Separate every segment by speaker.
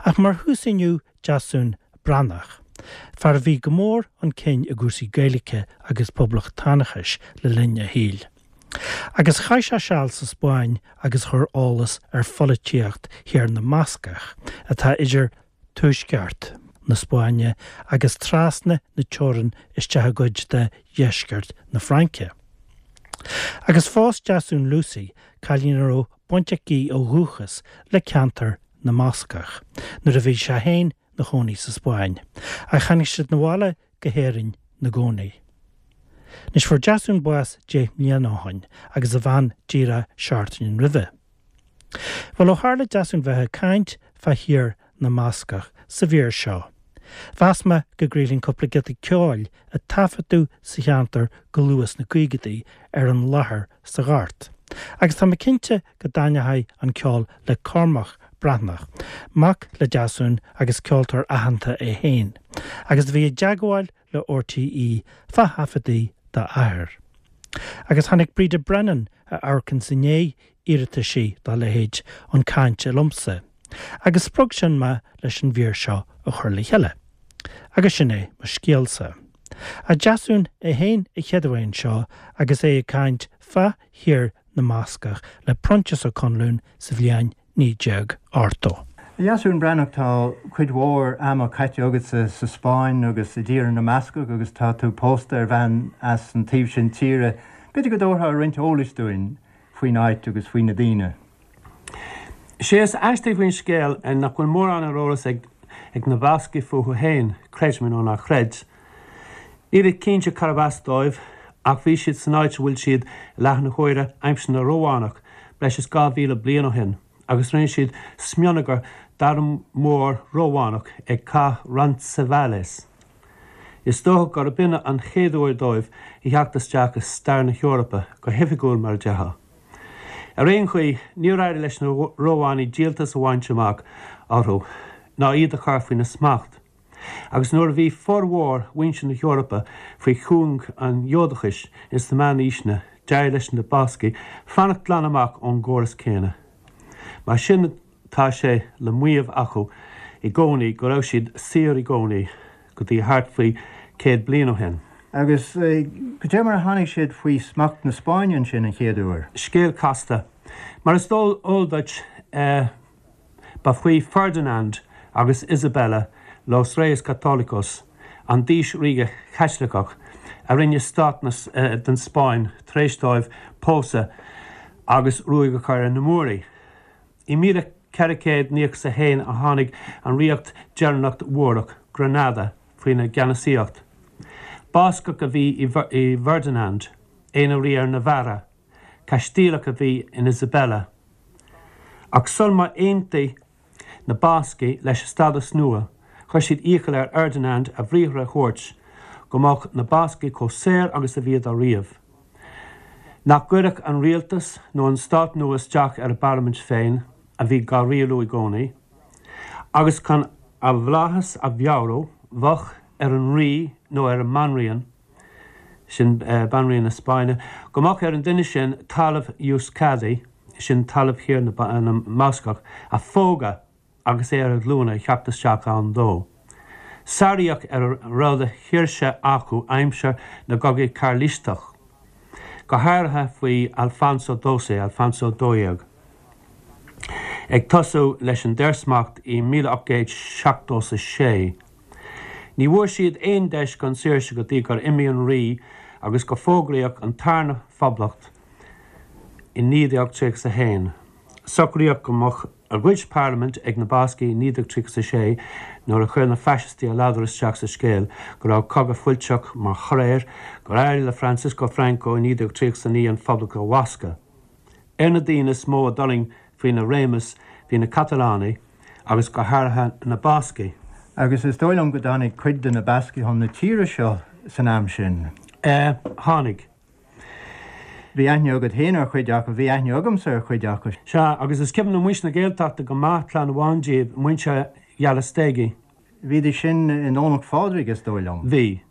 Speaker 1: Ach mar thús inniu Deasún Breathnach, fear a bhí go mór chun cinn i gcúrsaí Gaeilge agus poblachtánachais le linn a shaoil. Agus chaith sé seal sa Spáinn agus chuir eolas ar pholaitíocht Thír na mBascach, atá idir tuaisceart na Spáinne agus trasna na teorann isteach i gcuid de dheisceart na Fraince. Agus phós Deasún Lucy, cailín a raibh baint aici ó dhúchas le ceantar na mBascach, nuair a bhí sé féin 'na chónaí sa Spáinn, ach tháinig siad 'na bhaile go hÉirinn 'na gcónaí. Anois fuair Deasún bás deich mbliana ó shoin agus a bhean díreach seachtain roimhe. Bhuel, ó tharla Deasún bheith ag caint fá thír na mBascach sa mhír seo, mheas mé go gcraolfainn cúpla giota ceoil a taifeadadh sa cheantar go luath sna caogaidí ar an láthair sa ghort. Agus tá mé cinnte go dtaitneoidh an ceol le Cormac Breathnach, mac le Deasún agus ceoltóir aitheanta é féin, agus a bhí i dteagmháil le RTÉ fá thaifeadtaí dá athair. Agus tháinig Breda Brennan, a amharcanns i ndiaidh iarrataisí dá leithéid, chun cainte liomsa, agus spreag sin mé leis an mhír seo a chur le chéile. Agus sin é mo scéalsa. Ach Deasún é féin a chéaduair anseo agus é ag caint fá thír na mBascach le Proinsias Ó Conluain sa bhliain 1980.
Speaker 2: A Dheasúin Breathnach, tá cuid mhór ama caite agatsa sa Spáinn agus i dTír na mBascach agus tá tú pósta ar bhean as an taobh sin tíre. B'fhéidir go dtabharfá roinnt eolais dúinn faoin áit agus faoi na daoine.
Speaker 3: Sé is aistí faoin scéal nach bhfuil mórán ar eolas ag na Bascaigh fúthu féin, creid mé nó ná creid. Nílid cinnte carbh as dóibh, ach bhí siad san áit a bhfuil siad i láthair na huaire aimsir na Rómhánach, breis is 2,000 bliain ó shin, agus rinne siad smionagar d'arm mór Rómhánach ag Cath Roncesvalles. Is dócha gurb in an chéad uair dóibh a theacht isteach i stair na hEorpa, go hoifigiúil mar a déarfá. Ar aon chaoi, níor éirigh leis na Rómhánaigh díoltas a bhaint amach orthu, ná iad a chur faoina smacht. Agus nuair a bhí formhór mhuintir na hEorpa faoi chuing an Ghiúdachais ins na Meánaoiseanna, d'éirigh leis na Bascaigh fanacht glan amach ón gcóras céanna. Mar sin tá sé le maíomh acu i gcónaí go raibh siad saor i gcónaí, go dtí thart faoi chéad bliain ó shin.
Speaker 2: Agus cad é mar a tháinig siad faoi smacht na Spáinne ansin an chéad uair?
Speaker 3: Scéal casta. Mar is eol duit, Ba faoi Ferdinand agus Isabella, Los Reyes Católicos, an d'aois ríoga Chaitliceach, a rinne stát den Spáinn tar éis dóibh pósadh agus ruaig a chur ar na Múraigh. I 1491 a tháinig an ríocht deireanach Mhúrach, Granada, faoina gceannasaíocht. Bascach a bhí i bhFerdinand, é ina rí ar Navarra. Caistíleach a bhí in Isabella. Ach sul má aontaigh na Bascaigh leis an stádas nua, chuir siad iachall ar Fherdinand a bhriathra a thabhairt go mbeadh na Bascaigh chomh saor agus a bhíodar riamh, nach gcuirfeadh an rialtas nó an stát nua isteach ar a bparlaimint féin, a bhí dhá rialú i gcónaí, agus chun a bhflaitheas a mheabhrú, bheadh ar an rí nó ar an mbanríon, sin Banríon na Spáinne, go mbeadh ar an duine sin talamh Euskadi, sin talamh Thír na mBascach, a phógadh agus é ar a ghlúine ag theacht isteach ann dó. Sáraíodh ar a raibh de shaoirse acu aimsir na gCogaí Cairlisteach, go háirithe faoi Alfonso Doce, Alfonso 12, ag tosú leis an daorsmacht i 1876. Ní bhfuair siad aon deis chun saoirse go dtí gur imigh an rí agus gur fógraíodh an tarna phoblacht i 1931. Socraíodh go mbeadh a gcuid parlaimint ag na Bascaigh i 1936 nuair a chuir na faisistí a ladar isteach sa scéal go raibh cogadh fuilteach mar thoradh air gur éirigh le Francisco Franco i 1939 an phoblacht a bhascadh. Ar na daoine is mó a d'fhulaing faoina réimeas bhí na Catalánaigh agus go háirithe na Bascaigh.
Speaker 2: Agus is dóigh liom go dtáinig cuid de na Bascaigh chun na tíre seo san am sin.
Speaker 3: Tháinig.
Speaker 2: Bhí aithne agat féin ar chuid acu, bhí aithne agamsa ar chuid acu.
Speaker 3: Sea, agus is cuimhin le muintir na Gaeltachta go maith clann amháin díobh, muintir Ghalastegi.
Speaker 2: Bhídís sin i nDomhnach Phádraig, is dóigh liom.
Speaker 3: Bhí.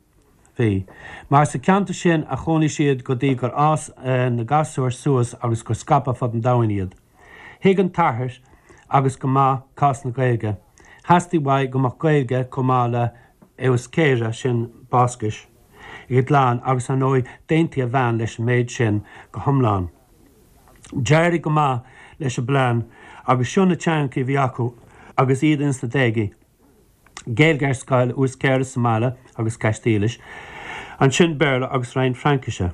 Speaker 3: Bhí. Mar sa cheantar sin a chónaigh siad go dtí gur fhás na gasúir suas agus gur scaipeadh fud an domhain iad. Thuig an t-athair agus go maith cás na Gaeilge. Theastaigh uaidh go mbeadh Gaeilge chomh maith le Euskera, sin Bascais, ag a gclann agus ar ndóigh d'aontaigh a bhean leis an méid sin go hiomlán. D'éirigh go maith leis an bplean agus seo na teangachaí a bhí acu agus iad ins na déagaí, Gaeilge ar scoil, Euskera sa mbaile agus Caistílis, ansin Béarla agus roinnt Fraincise.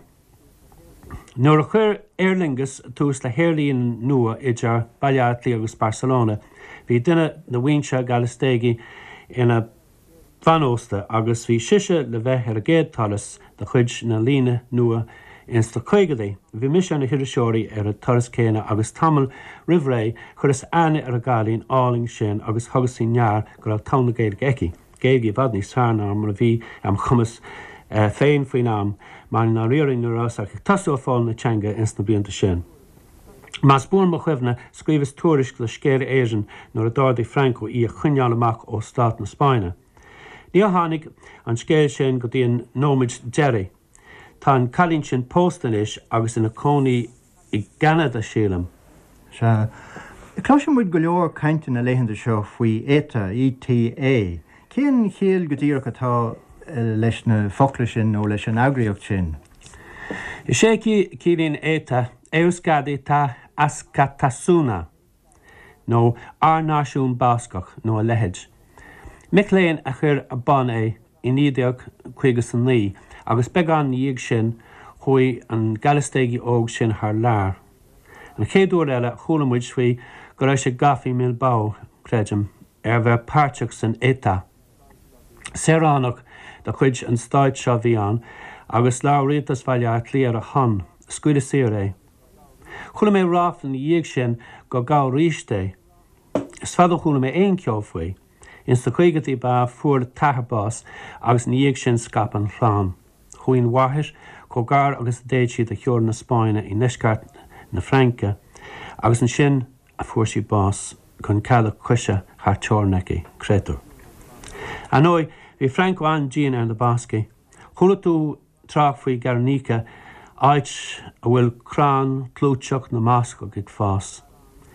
Speaker 3: Nuair a chuir Aer Lingus tús le haerlíne nua idir Baile Átha Cliath agus Barcelona, bhí duine de mhuintir Gallastegi ina bhean ósta agus bhí sise le bheith ar an gcéad turas de chuid na líne nua ins na caogadaí. Bhí mise ar na hiriseoirí ar an turas céanna agus tamall roimh ré chuireas aithne ar an gcailín álainn sin agus thugas faoi ndear go raibh togha na Gaeilge aici, Gaeilge i bhfad níos fearr ná mar a bhí am chumas féin faoin am, mar i ndáiríre ní rabhas ach ag tosú ag foghlaim na teanga ins na blianta sin. Más buan mo chuimhne, scríobhas tuairisc do Scéala Éireann nuair a d'ordaigh Franco í a choinneáil amach ó stát na Spáinne. Níor tháinig an scéal sin go dtí an nóiméad deiridh. Tá an cailín sin pósta anois agus ina cónaí i gCeanada, sílim.
Speaker 2: Sea. Cloiseann muid go leor cainte na laethanta seo faoi ETA, ETA. Cén chiall go díreach atá leis na focla sin nó leis an eagraíocht sin?
Speaker 3: Is é a chiallaíonn ETA, Euskadi Ta Askatasuna, nó Ár Náisiún Bascach, nó a leithéid. Mic léinn a chuir ar bun é i 1959 agus beagán ina dhiaidh sin chuaigh an Gallastegi óg sin thar lear. An chéad uair eile a chuala muid faoi go raibh sé gafa i mBilbao, creidim, ar bheith páirteach san ETA. Saoránach de chuid an stáit seo a bhí ann agus labhair rialtas Bhaile Átha Cliath ar a shon. Scaoileadh saor é. Chuala mé ráfla ina dhiaidh sin gur gabhadh aríst é. Is fada ó chuala mé aon cheo faoi. Ins na caogaidí ba ea a fuair a t-athair bás agus ina dhiaidh sin scaip an chlann. Chuaigh an mháthair chomh gar agus a d'fhéad sí do theorainn na Spáinne i ndeisceart na Fraince agus ansin a fuair sí bás gan cead a coise thar teorainn aici, créatúr. Ar ndóigh, bhí Franco an-dian ar na Bascaigh. Chuala tú trácht faoi Gernika, áit a bhfuil crann clúiteach na mBascach ag fás.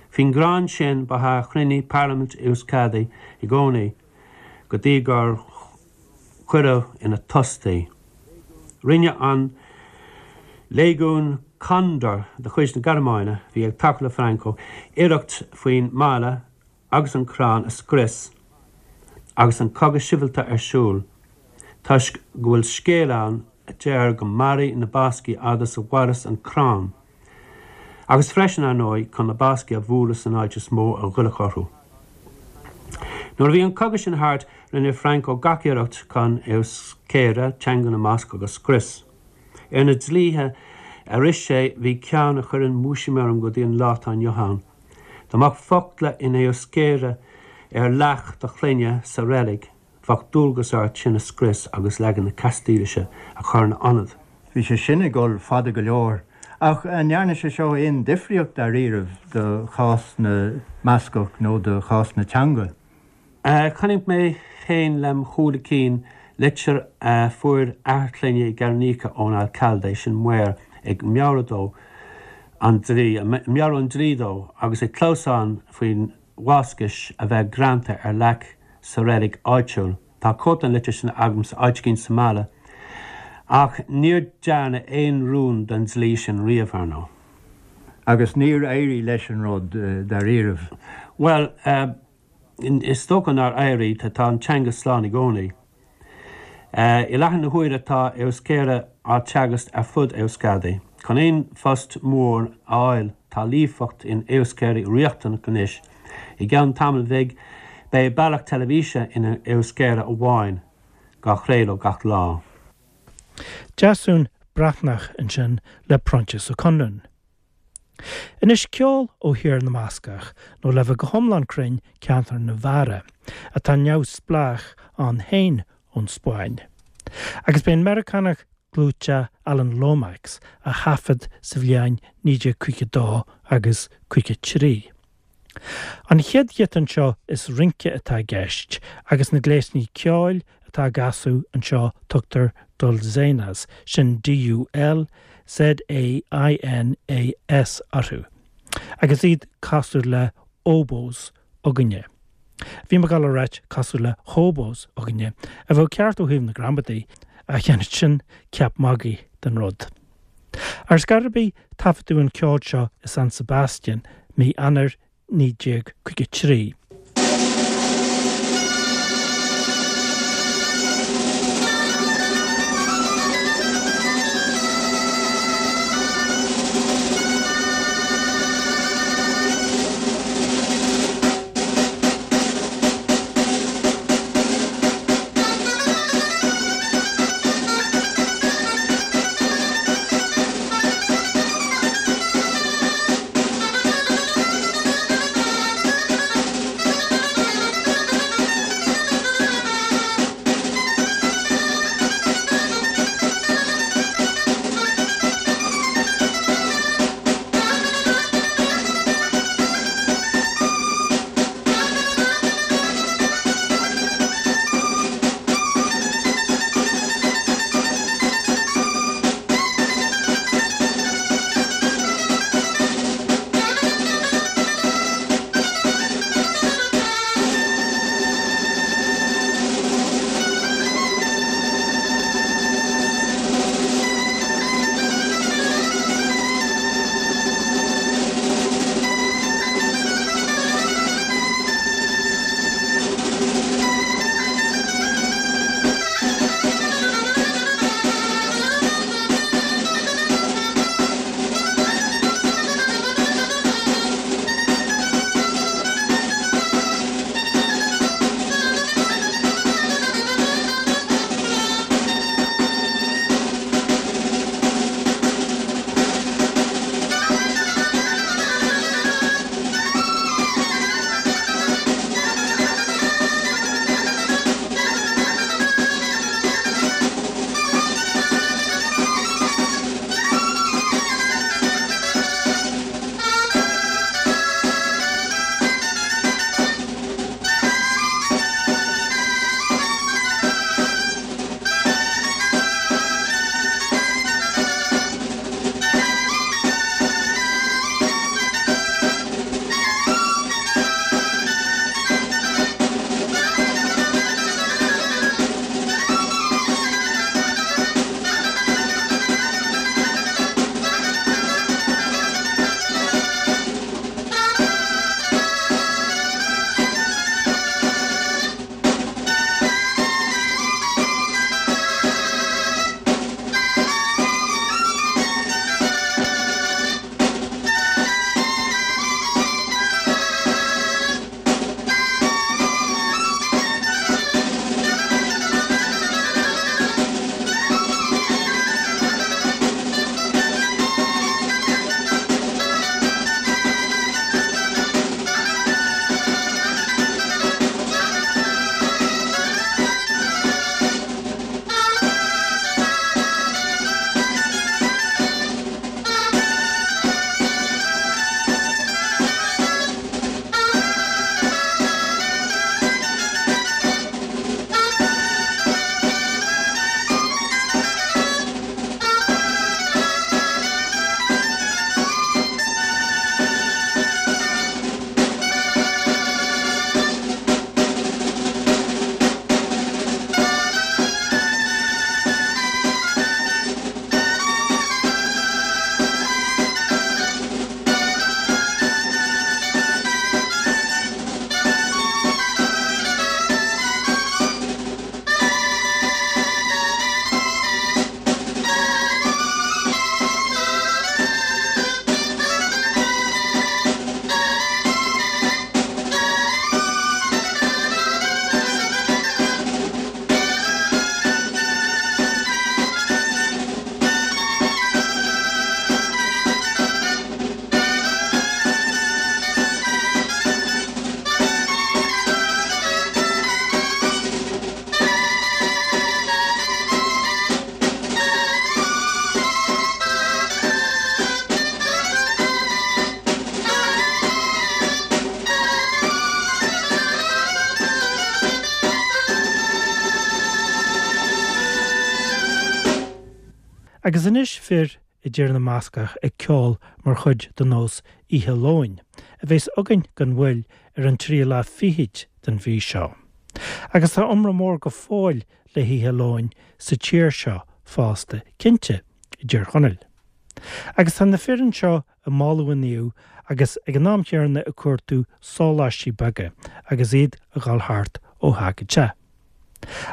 Speaker 3: Faoin gcrann sin ba ea a chruinnigh Parlaimint Euskadi i gcónaí go dtí gur cuireadh ina tost í. Rinne an Léigiún Condor de chuid na Gearmáine, a bhí ag tacú le Franco, iarracht faoin mbaile agus an crann a scrios agus an cogadh sibhialta ar siúl, toisc go bhfuil scéal ann a deir go mairfidh na Bascaigh fhad is a mhaireas an crann. Agus freisin, ar ndóigh, chun na Bascaigh a bhualadh san áit is mó a ghoillfeadh orthu. Nuair a bhí an cogadh sin thart, rinne Franco gach iarracht chun Euskera, teanga na mBascach, a scrios. Ar na dlíthe a rith sé bhí ceann a chuireann múisiam orm go dtí an lá atá inniu ann. Dá mbeadh focla in Euskera ar leac do chlainne sa reilig, Bheadh dualgas ort sin a scrios agus leagan na Castaílise a chur ina ionad.
Speaker 2: Bhí sé sin ag dul fada go leor. Ach an ndearna sé seo aon difríocht dáiríribh do chás na mBascach nó do chás na teanga?
Speaker 3: Chonaic mé féin lem shúile cinn litir a fuair athair clainne i Gernika ón alcalde, sin maor, ag meabhrú dó an dlí, meabhrú an dlí dó agus ag clamhsán faoin Bhascais a bheith greanta ar leac sa reilig áitiúil. Tá cóip den litir sin agamsa áit éigin sa mbaile. Ach níor dearnadh aon rún den dlí sin riamh, ar ndóigh.
Speaker 2: Agus níor éirigh leis an rud, dáiríribh.
Speaker 3: Bhuel, is dócha nár éirigh. Tá an teanga slán i gcónaí. I láthair na huaire tá Euskera á teagasc ar fud Euskadi. Chun aon phost mór a fháil tá líofacht in Euskera riachtanach anois. I gceann tamaill bhig beidh bealach teilifíse in Euskera amháin á chraoladh gach lá.
Speaker 1: Deasún Breatnach ansin le Proinsias Ó Conluain. Anois ceol ó Thír na mBascach, nó le bheith go hiomlán cruinn, ceantar Navarra, atá neamhspleách ann féin ón Spáinn. Agus b'é an Meiriceánach clúiteach Alan Lomax a thaifead sa bhliain 1952 agus 53. An chéad ghiota anseo is rince atá i gceist agus na gléasanna ceoil atá á gcasadh anseo tugtar dulzainas, sin D-U-L-Z-A-I-N-A-S, orthu, agus iad cosúil le oboes againne. Bhí mé ag dul a ráit cosúil le hobos againne, a bheadh ceart ó thaobh na gramadaí, ach dhéanfadh sin ceap magaidh den rud. Ar scor ar bith, taifeadadh an ceol seo i San Sebastian mí Eanáir 1953. Agus anois fir i dTír na mBascach ag ceol mar chuid de nós Oíche Lóin, a bheas againn gan mhoill ar an tríú lá fichid. den mhí seo. Agus tá iomrá mór go fóill le hOíche Luain sa tír seo fosta, cinnte, i dTír Chonaill. Agus tá na fir anseo ag moladh an naoimh agus ag an am chéanna ag cuartú sóláistí beaga agus iad ag dul thart ó theach go teach.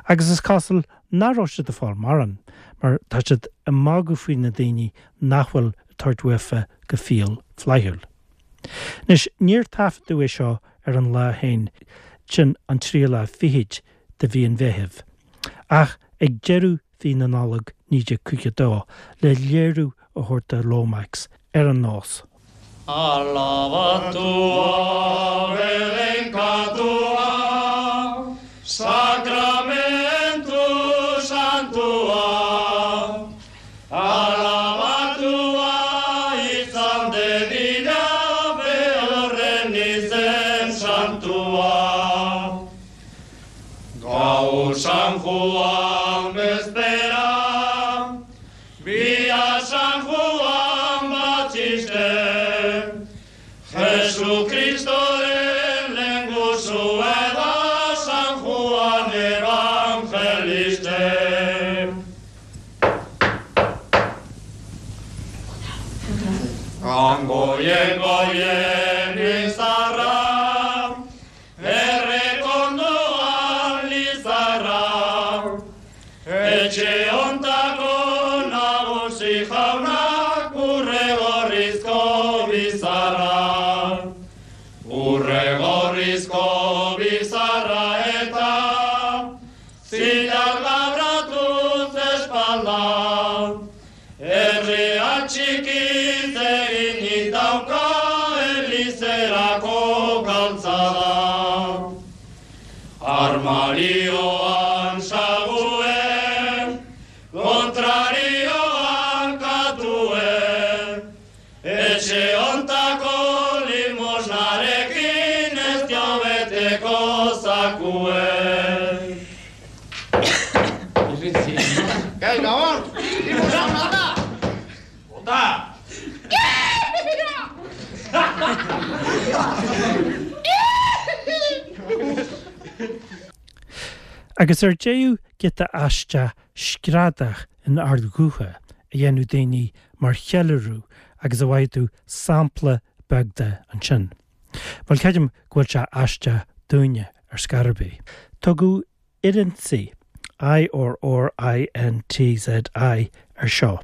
Speaker 1: Agus is cosúil nach raibh siad ag fáil mórán, mar tá siad ag magadh faoi na daoine nach bhfuil ag tabhairt uafa go fial flaithiúil. Anois, níor taifeadadh é seo ar an lá féin, sin an tríú lá fichid de mhí an Mheithimh, ach ag deireadh mhí na Nollag 1952, le léiriú a thabhairt do Lomax ar an nós.
Speaker 4: Alabatua, bedeinkatua, sakramentu santua. Alabatua izan dedila behorren izen santua. Gaur San Juan bezpera, bihar San Juan Batxiste, Jesu Kristoren lehengusue da San Juan Evangeliste. Han goien goien izarra, Errekondoan lizarra, Etxe hontako nagusi jaunak urre gorrizko bizarra. Urre gorrizko bizarra eta zilar labratuz espalda. Herria txikiz eginik dauka elizerako galtzada. Armarioan sague, kontrarioan katue, etxe hontako limosnarekin ez dio beteko zakue.
Speaker 5: Gai, Gabon! Limosna da!
Speaker 4: Bota!
Speaker 1: Agus ar deireadh giota aisteach screadach in ard-ghuth a dhéanadh daoine mar cheiliúradh agus a bhfaighidh tú sampla beag de ansin. Bhuel, creidim go bhfuil sé aisteach dúinne ar scor ar bith. Tugadh Irrintzi, I-R-R-I-N-T-Z-I, ar seo.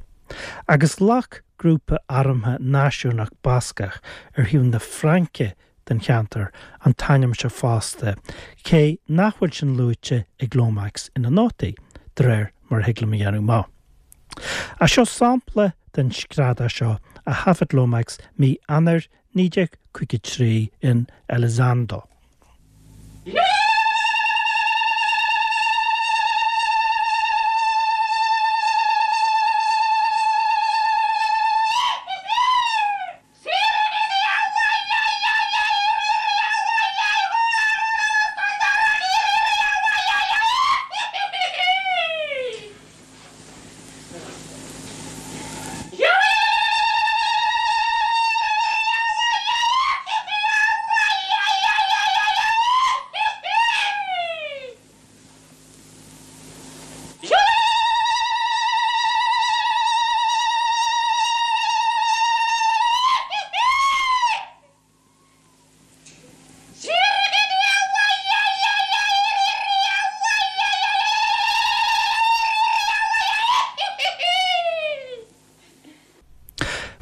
Speaker 1: Agus ghlac grúpa armtha náisiúnach Bascach ar thaobh na Fraince den cheantar an t-ainm seo fosta, cé nach bhfuil sin luaite ag Lomax ina nótaí, de réir mar a thig liom a dhéanamh amach. Ach seo sampla den screadach seo a thaifead Lomax mí Eanáir 1953 in Elizondo.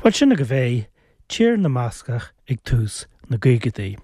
Speaker 1: Bhuel, sin agaibh é, Tír na mBascach ag tús na gcaogaidí.